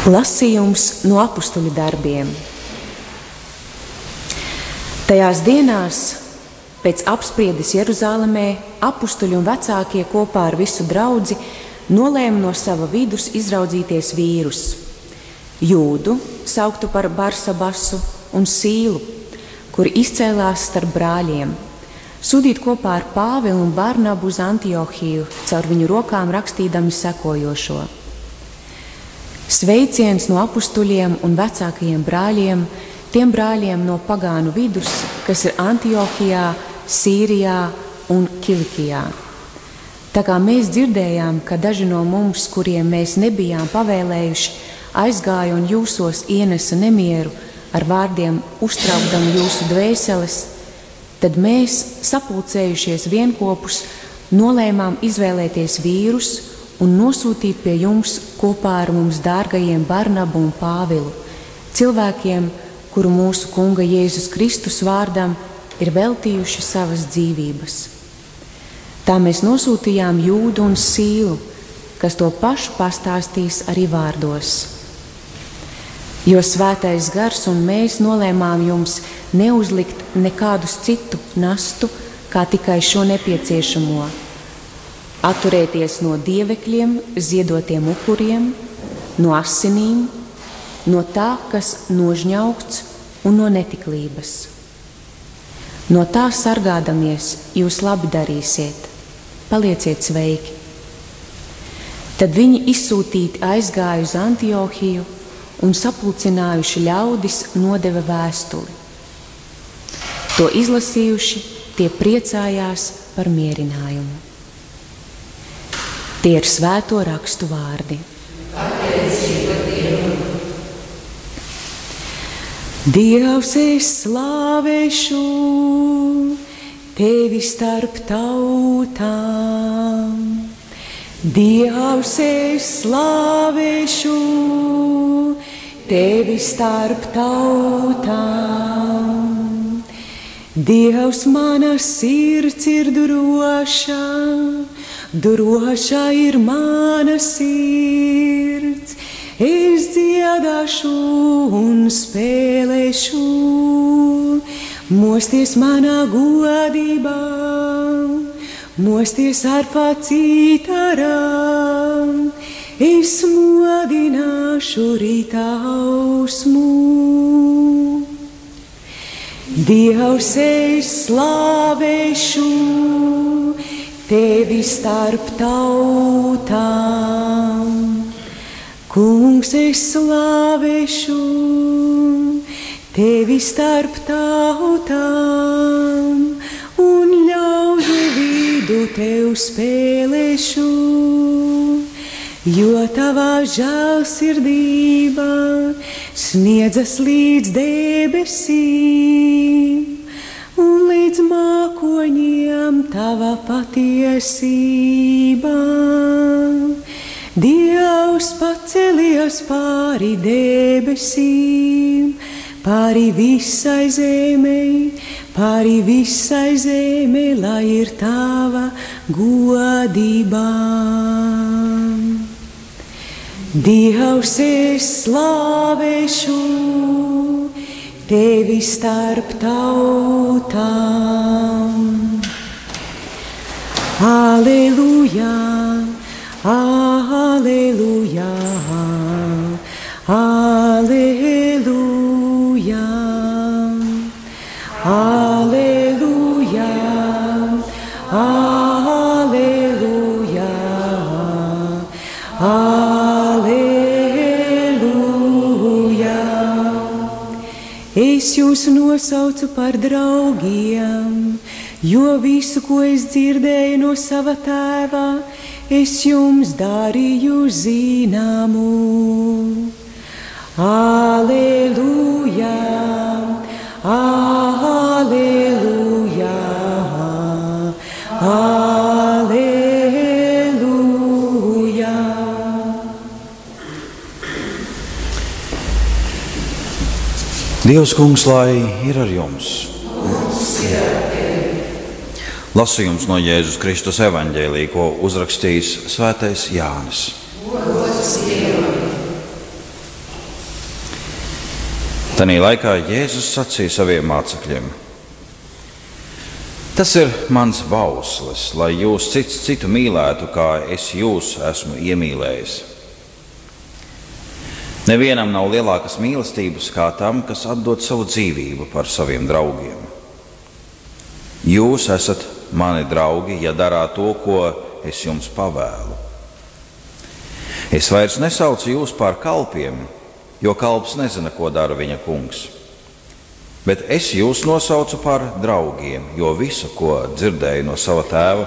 Lasījums no apustuļu darbiem. Tajās dienās, pēc apspriedes Jeruzālemē, apustuļi un vecākie kopā ar visu draudzi nolēma no sava vidus izraudzīties vīrus, Jūdu, sauktu par Barsabasu, un Sīlu, kuri izcēlās starp brāļiem, sūtīt kopā ar Pāvilu un Barnabu uz Antiohiju, caur viņu rokām rakstīdami sekojošo: Sveiciens no apustuļiem un vecākajiem brāļiem, tiem brāļiem no pagānu vidus, kas ir Antiohijā, Sīrijā un Kilikijā. Tā kā mēs dzirdējām, ka daži no mums, kuriem mēs nebijām pavēlējuši, aizgāja un jūsos ienesa nemieru ar vārdiem uztraukdami jūsu dvēseles, tad mēs, sapulcējušies vienkopus, nolēmām izvēlēties vīrus un nosūtīt pie jums kopā ar mums dārgajiem Barnabu un Pāvilu, cilvēkiem, kuru mūsu Kunga Jēzus Kristus vārdam ir veltījuši savas dzīvības. Tā mēs nosūtījām Jūdu un Sīlu, kas to pašu pastāstīs arī vārdos. Jo Svētais Gars un mēs nolēmām jums neuzlikt nekādus citu nastu, kā tikai šo nepieciešamo: atturēties no dievekļiem, ziedotiem upuriem, no asinīm, no tā, kas nožņaugts, un no netiklības. No tā sargādamies, jūs labi darīsiet, palieciet sveiki. Tad viņi izsūtīti aizgāja uz Antiohiju un sapulcinājuši ļaudis nodeva vēstuli. To izlasījuši, tie priecājās par mierinājumu. Tie ir svēto rakstu vārdi. Dievs, es slavēšu tevi starp tautām. Dievs, es slavēšu tevi starp tautām. Dievs, mana sirds ir droša, droša ir mana sirds. Es dziedāšu un spēlēšu, mosties manā godībā, mosties arfā citarā. Es modināšu rīta ausmu. Dievs, es slavēšu tevi starp tautām. Kungs, es slavēšu tevi starp tautām un ļaužu vidu tev spēlēšu, jo tavā žēlsirdība sniedzas līdz debesīm un līdz mākoņiem tava patiesība. Dievs pacelies pāri debesīm, pāri visai zemei, lai ir tava godība. Dievs, es slavēšu tevi starp tautām. Aleluja! Aleluja, aleluja, aleluja, aleluja, aleluja. Es jūs nosaucu par draugiem, jo visu, ko es dzirdēju no sava tēva, es jums darīju zināmu. Aleluja, aleluja, aleluja. Dievs, Kungs, lai ir ar jums. Lasījums no Jēzus Kristus evaņģēlija, ko uzrakstījis Svētais Jānis. Tanī laikā Jēzus sacīja saviem mācekļiem: Tas ir mans bauslis, lai jūs cits citu mīlētu, kā es jūs esmu iemīlējis. Nevienam nav lielākas mīlestības kā tam, kas atdod savu dzīvību par saviem draugiem. Jūs esat mani draugi, ja darāt to, ko es jums pavēlu. Es vairs nesaucu jūs par kalpiem, jo kalps nezina, ko dara viņa kungs. Bet es jūs nosaucu par draugiem, jo visu, ko dzirdēju no sava tēva,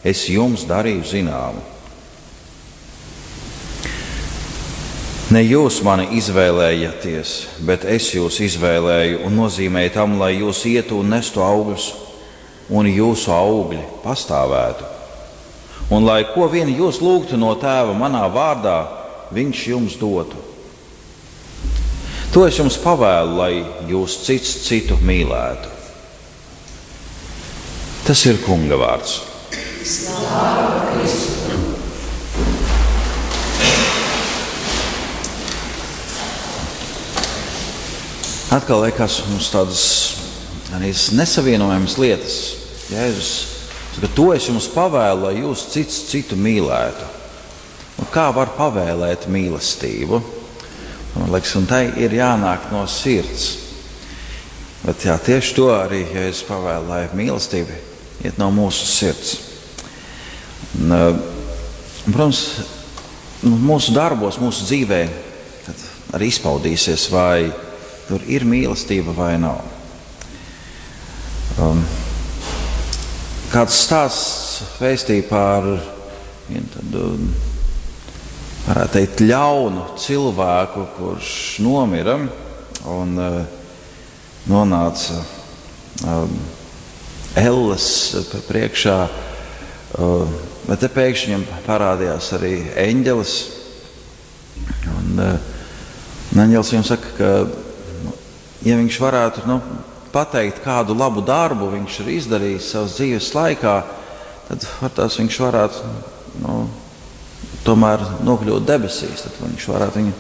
es jums darīju zināmu. Ne jūs mani izvēlējāties, bet es jūs izvēlēju un nozīmēju tam, lai jūs ietu un nestu augļus, un jūsu augļi pastāvētu. Un lai ko vien jūs lūgtu no tēva manā vārdā, viņš jums dotu. To es jums pavēlu, lai jūs cits citu mīlētu. Tas ir Kunga vārds. Slāva Kristu! Atkal liekas mums tādas nesavienojamas lietas. Jēzus saka, to es jums pavēlu, lai jūs cits citu mīlētu. Un kā var pavēlēt mīlestību? Man liekas, un tai ir jānāk no sirds. Bet jā, tieši to arī Jēzus pavēlu, lai mīlestība iet no mūsu sirds. Un, protams, mūsu darbos, mūsu dzīvē arī izpaudīsies, vai tur ir mīlestība vai nav. Kāds stāsts vēstīja par vienu tādu, varētu teikt, ļaunu cilvēku, kurš nomira un nonāca elles priekšā, bet te pēkšņi viņam parādījās arī eņģelis. Un eņģelis viņam saka, ka ja viņš varētu pateikt, kādu labu darbu viņš ir izdarījis savas dzīves laikā, tad viņš varētu tomēr nokļūt debesīs. Tad viņš varētu viņu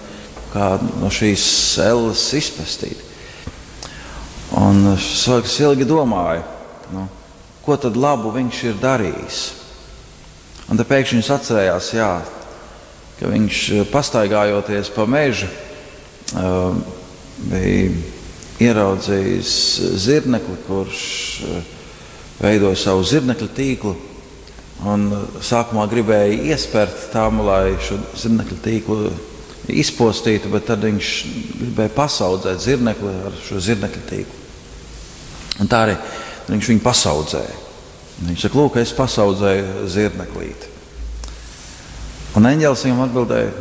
kā no šīs elles izpestīt. Un cilvēks ilgi domāja, ko tad labu viņš ir darījis. Un te pēkšņi viņš atcerējās, ka viņš pastaigājoties pa mežu bija ieraudzījis zirnekli, kurš veidoja savu zirnekļa tīklu. Un sākumā gribēja iespērt tam, lai šo zirnekļa tīklu izpostītu, bet tad viņš gribēja pasaudzēt zirnekli ar šo zirnekļa tīklu. Un tā arī viņš viņu pasaudzēja. Viņš saka, lūk, es pasaudzēju zirneklīti. Un eņģelis viņam atbildēja,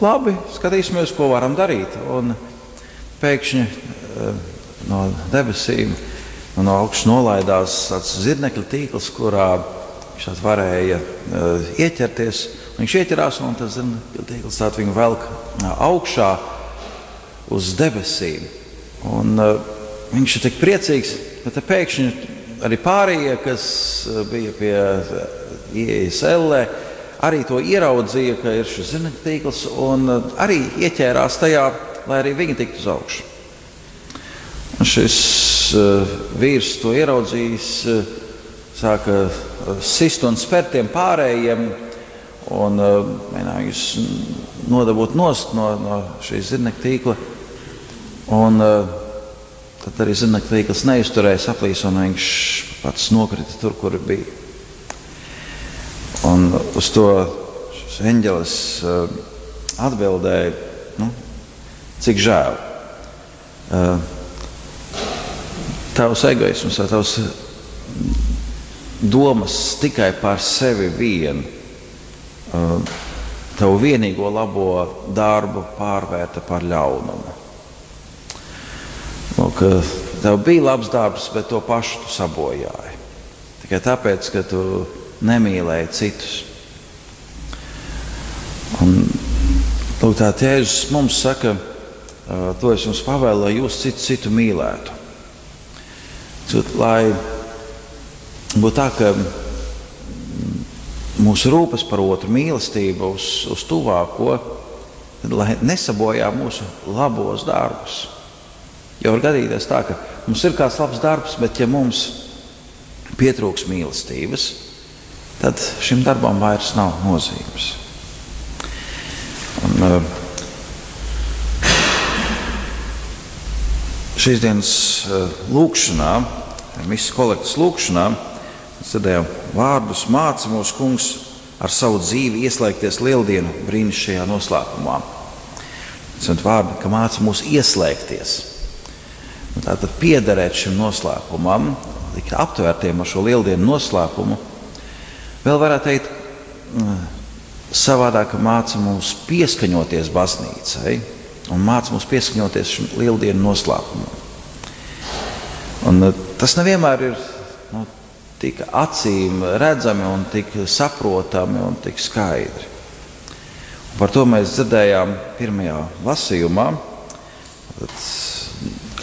labi, skatīsimies, ko varam darīt. Un pēkšņi no debesīm no augšas nolaidās tāds zirnekļa tīkls, kurā viņš varēja ieķerties. Viņš ieķerās un tas zirnekļa tīkls viņu velk augšā uz debesīm. Un viņš ir tik priecīgs, bet pēkšņi arī pārējie, kas bija pie ieejas ellē, arī to ieraudzīja, ka ir šis zirnekļa tīkls un arī ieķērās tajā, lai arī viņi tiktu uz augšu. Un šis vīrs to ieraudzījis, sāka sist un spērt tiem pārējiem un mēģināja viņus nodabūt nost no šīs zirnekļa tīkla. Un tad arī zirnekļa tīkls neizturēja, saplīsa un viņš pats nokrita tur, kur bija. Un uz to šis eņģelis atbildēja, cik žēl. Tavs egoisms vai tavs domas tikai par sevi vienu, tavu vienīgo labo darbu pārvērta par ļaunumu. Lūk, tev bija labs darbs, bet to pašu tu sabojāji. Tikai tāpēc, ka tu nemīlēji citus. Un lūk, tā Jēzus mums saka, to es jums pavēlu, lai jūs citu mīlētu. Lai būtu tā, ka mūsu rūpes par otru mīlestību uz tuvāko lai nesabojā mūsu labos darbus. Jo var gadīties tā, ka mums ir kāds labs darbs, bet ja mums pietrūks mīlestības, tad šim darbam vairs nav nozīmes. Un, šīs dienas lūkšanā, misas kolektas lūkšanā, mēs dzirdējām vārdus: māca mūsu Kungs ar savu dzīvi ieslēgties lieldienu brīnišķīgajā noslēpumā. Tas ir vārdi, ka māca mūs ieslēgties. Tātad piederēt šim noslēpumam, tikt aptvērtiem ar šo lieldienu noslēpumu. Vēl varētu teikt savādāk, ka māca mūs pieskaņoties baznīcai un māca mūs pieskaņoties šim lieldienu noslēpumam. Un tas nevienmēr ir tik acīm redzami un tik saprotami un tik skaidri. Un par to mēs dzirdējām pirmajā lasījumā,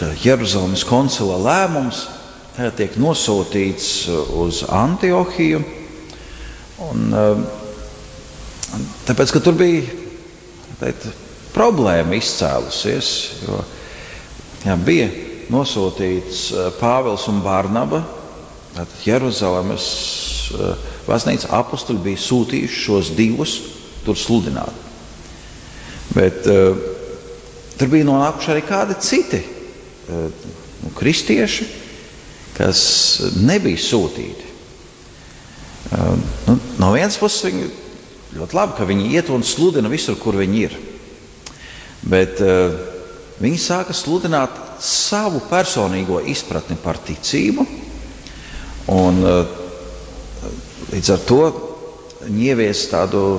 ka Jeruzalemes koncila lēmums tagad tiek nosūtīts uz Antiohiju. Un, tāpēc, ka tur bija problēma izcēlusies, jo bija nosūtīts Pāvils un Barnaba, Jeruzalemes baznīca apustuļi bija sūtījuši šos divus tur sludināt. Bet tur bija nonākuši arī kādi citi kristieši, kas nebija sūtīti. No vienas puses viņi ļoti labi, ka viņi iet un sludina visur, kur viņi ir. Bet viņi sāka sludināt savu personīgo izpratni par ticību, un līdz ar to viņi ievies tādu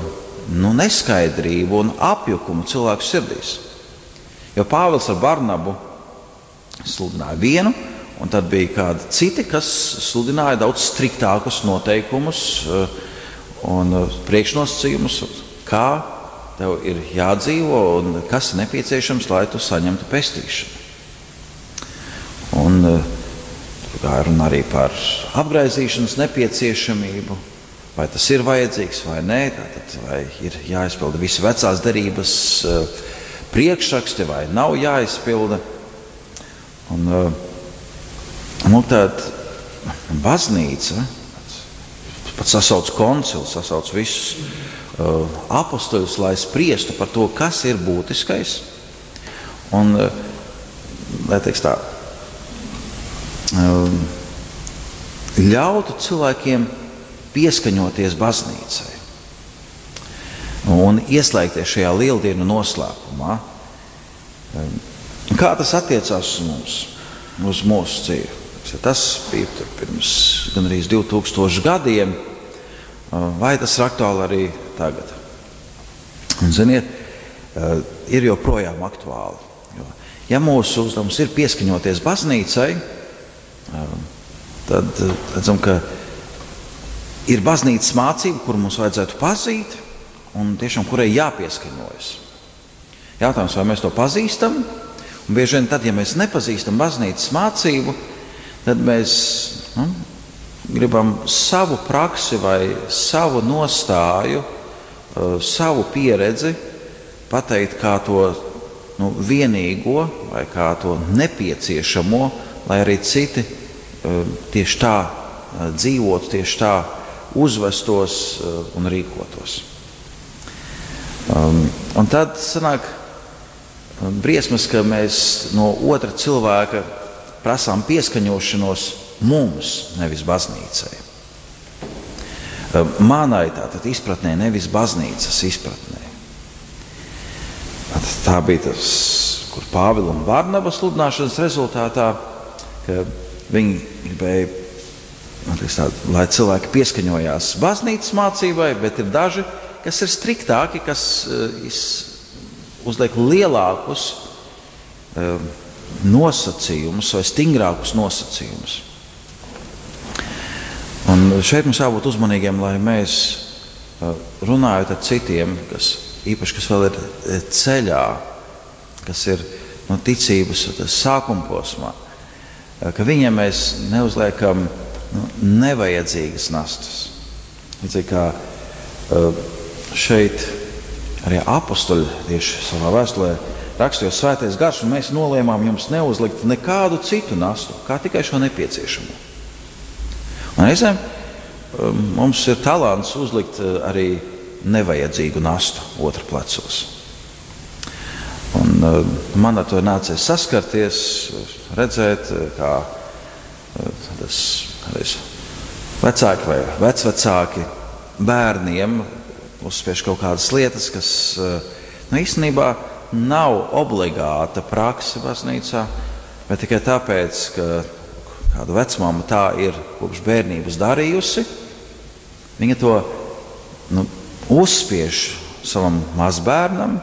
neskaidrību un apjukumu cilvēku sirdīs. Jo Pāvils ar Barnabu sludināja vienu, un tad bija kādi citi, kas sludināja daudz striktākus noteikumus un priekšnosacījumus, kā tev ir jādzīvo un kas ir nepieciešams, lai tu saņemtu pestīšanu. Un gāja runa arī par apgraizīšanas nepieciešamību, vai tas ir vajadzīgs vai nē, tātad vai ir jāizpilda visi vecās derības priekšraksti vai nav jāizpilda. Un tad baznīca pat sasauc koncilu, sasauc visus apostoļus, lai spriestu par to, kas ir būtiskais. Un, lai teiks tā, ļautu cilvēkiem pieskaņoties baznīcai un ieslēgties šajā lieldienu noslēpumā. Kā tas attiecās uz mums, uz mūsu dzīvi? Tas bija pirms gandrīz 2000 gadiem, vai tas ir aktuāli arī tagad? Un, ziniet, ir joprojām aktuāli. Jo, ja mūsu uzdevums ir pieskaņoties baznīcai, tad redzam, ka ir baznīcas mācība, kuru mums vajadzētu pazīt un tiešām kurai jāpieskaņojas. Jautājums, vai mēs to pazīstam? Un bieži vien tad, ja mēs nepazīstam baznīcas mācību, tad mēs gribam savu praksi vai savu nostāju, savu pieredzi pateikt kā to vienīgo vai kā to nepieciešamo, lai arī citi tieši tā dzīvotu, tieši tā uzvestos un rīkotos. Un tad sanāk briesmas, ka mēs no otra cilvēka prasām pieskaņošanos mums, nevis baznīcai. Manai tātad izpratnē, nevis baznīcas izpratnē. Tā bija tas, kur Pāvila un Barnaba sludināšanas rezultātā, ka viņi gribēja, lai cilvēki pieskaņojās baznīcas mācībai, bet ir daži, kas ir striktāki, kas uzliek lielākus nosacījumus vai stingrākus nosacījumus. Un šeit mums jābūt uzmanīgiem, lai mēs runājot ar citiem, īpaši kas vēl ir ceļā, kas ir ticības sākuma posmā, ka viņiem mēs neuzliekam nevajadzīgas nastas. Līdzīgi kā šeit arī apostoļi tieši savā vēstulē rakstījos svētais gars, un mēs nolēmām jums neuzlikt nekādu citu nastu, kā tikai šo nepieciešamo. Un reizēm mums ir talants uzlikt arī nevajadzīgu nastu otru plecos. Un man ar to nācies saskarties, redzēt, kā tas vecāki vai vecvecāki bērniem uzspiež kaut kādas lietas, kas īstenībā nav obligāta prakse baznīcā, bet tikai tāpēc, ka kāda vecmāma tā ir kopš bērnības darījusi, viņa to uzspiež savam mazbērnam,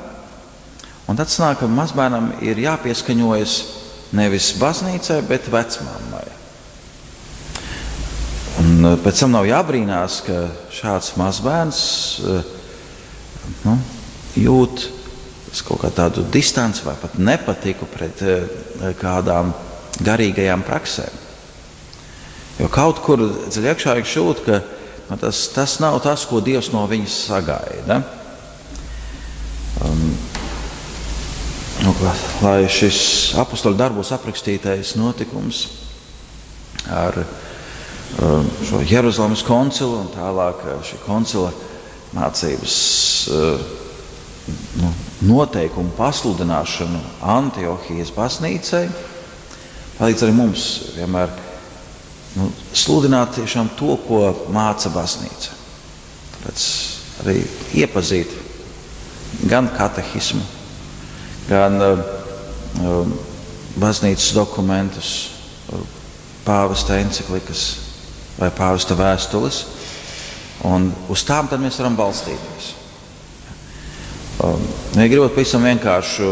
un tad sanāk, ka mazbērnam ir jāpieskaņojas nevis baznīcai, bet vecmāmai. Un pēc tam nav jābrīnās, ka šāds mazbērns jūt kaut kā tādu distanci vai pat nepatiku pret kādām garīgajām praksēm. Jo kaut kur dziļi iekšā viņš jūt, ka tas nav tas, ko Dievs no viņas sagaida. Lai šis apostoļu darbos aprakstītais notikums ar šo Jeruzalemes koncilu un tālāk šī koncila mācības noteikumu pasludināšanu Antiohijas baznīcai palīdz arī mums vienmēr sludināt tiešām to, ko māca baznīca. Tāpēc arī iepazīt gan katehismu, gan baznīcas dokumentus, pāvesta enciklikas vai pāvesta vēstules, un uz tām tad mēs varam balstīties. Ja gribat pavisam vienkāršu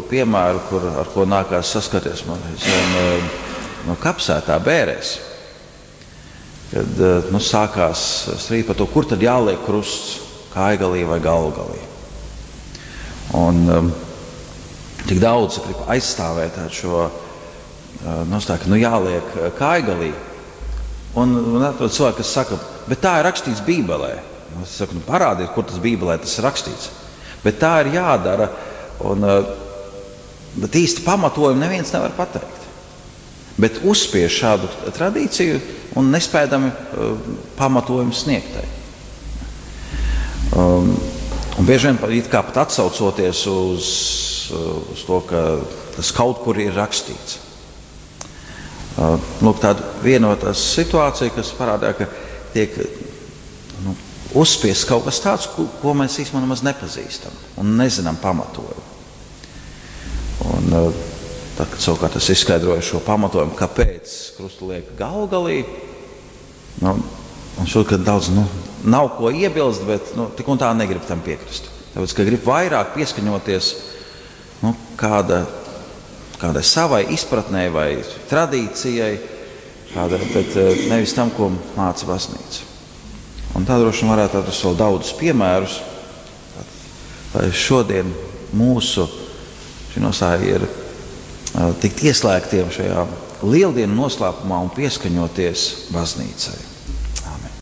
piemēru, ar ko nākās saskarties man no Kapsētā Bērēs, kad sākās strīd par to, kur tad jāliek krusts, Kaigalī vai Galgalī. Un tik daudz grib aizstāvēt šo nostāju, ka jāliek Kaigalī. Un atrod cilvēki, kas saka, bet tā ir rakstīts Bībelē. Es saku, parādiet, kur tas Bībelē tas ir rakstīts. Bet tā ir jādara, bet īsti pamatojumu neviens nevar pateikt. Bet uzspiež šādu tradīciju un nespēdami pamatojumu sniegtai. Un bieži vien it kā pat atsaucoties uz to, ka tas kaut kur ir rakstīts. Lūk, tāda vienotā situācija, kas parādā, ka tiek uzspiests kaut kas tāds, ko mēs īstenībā nemaz nepazīstam un nezinām pamatojumu. Un tad, kad savukārt es izskaidroju šo pamatojumu, kāpēc krustu liek Galgalī, un šodien daudz nav ko iebilst, bet tik un tā negrib tam piekrist. Tāpēc, ka grib vairāk pieskaņoties kādai savai izpratnē vai tradīcijai, bet nevis tam, ko māca baznīca. Un tā droši vien varētu atrast vēl daudzus piemērus, lai šodien mūsu šī nostāja ir tikt ieslēgtiem šajā lieldienu noslēpumā un pieskaņoties baznīcai.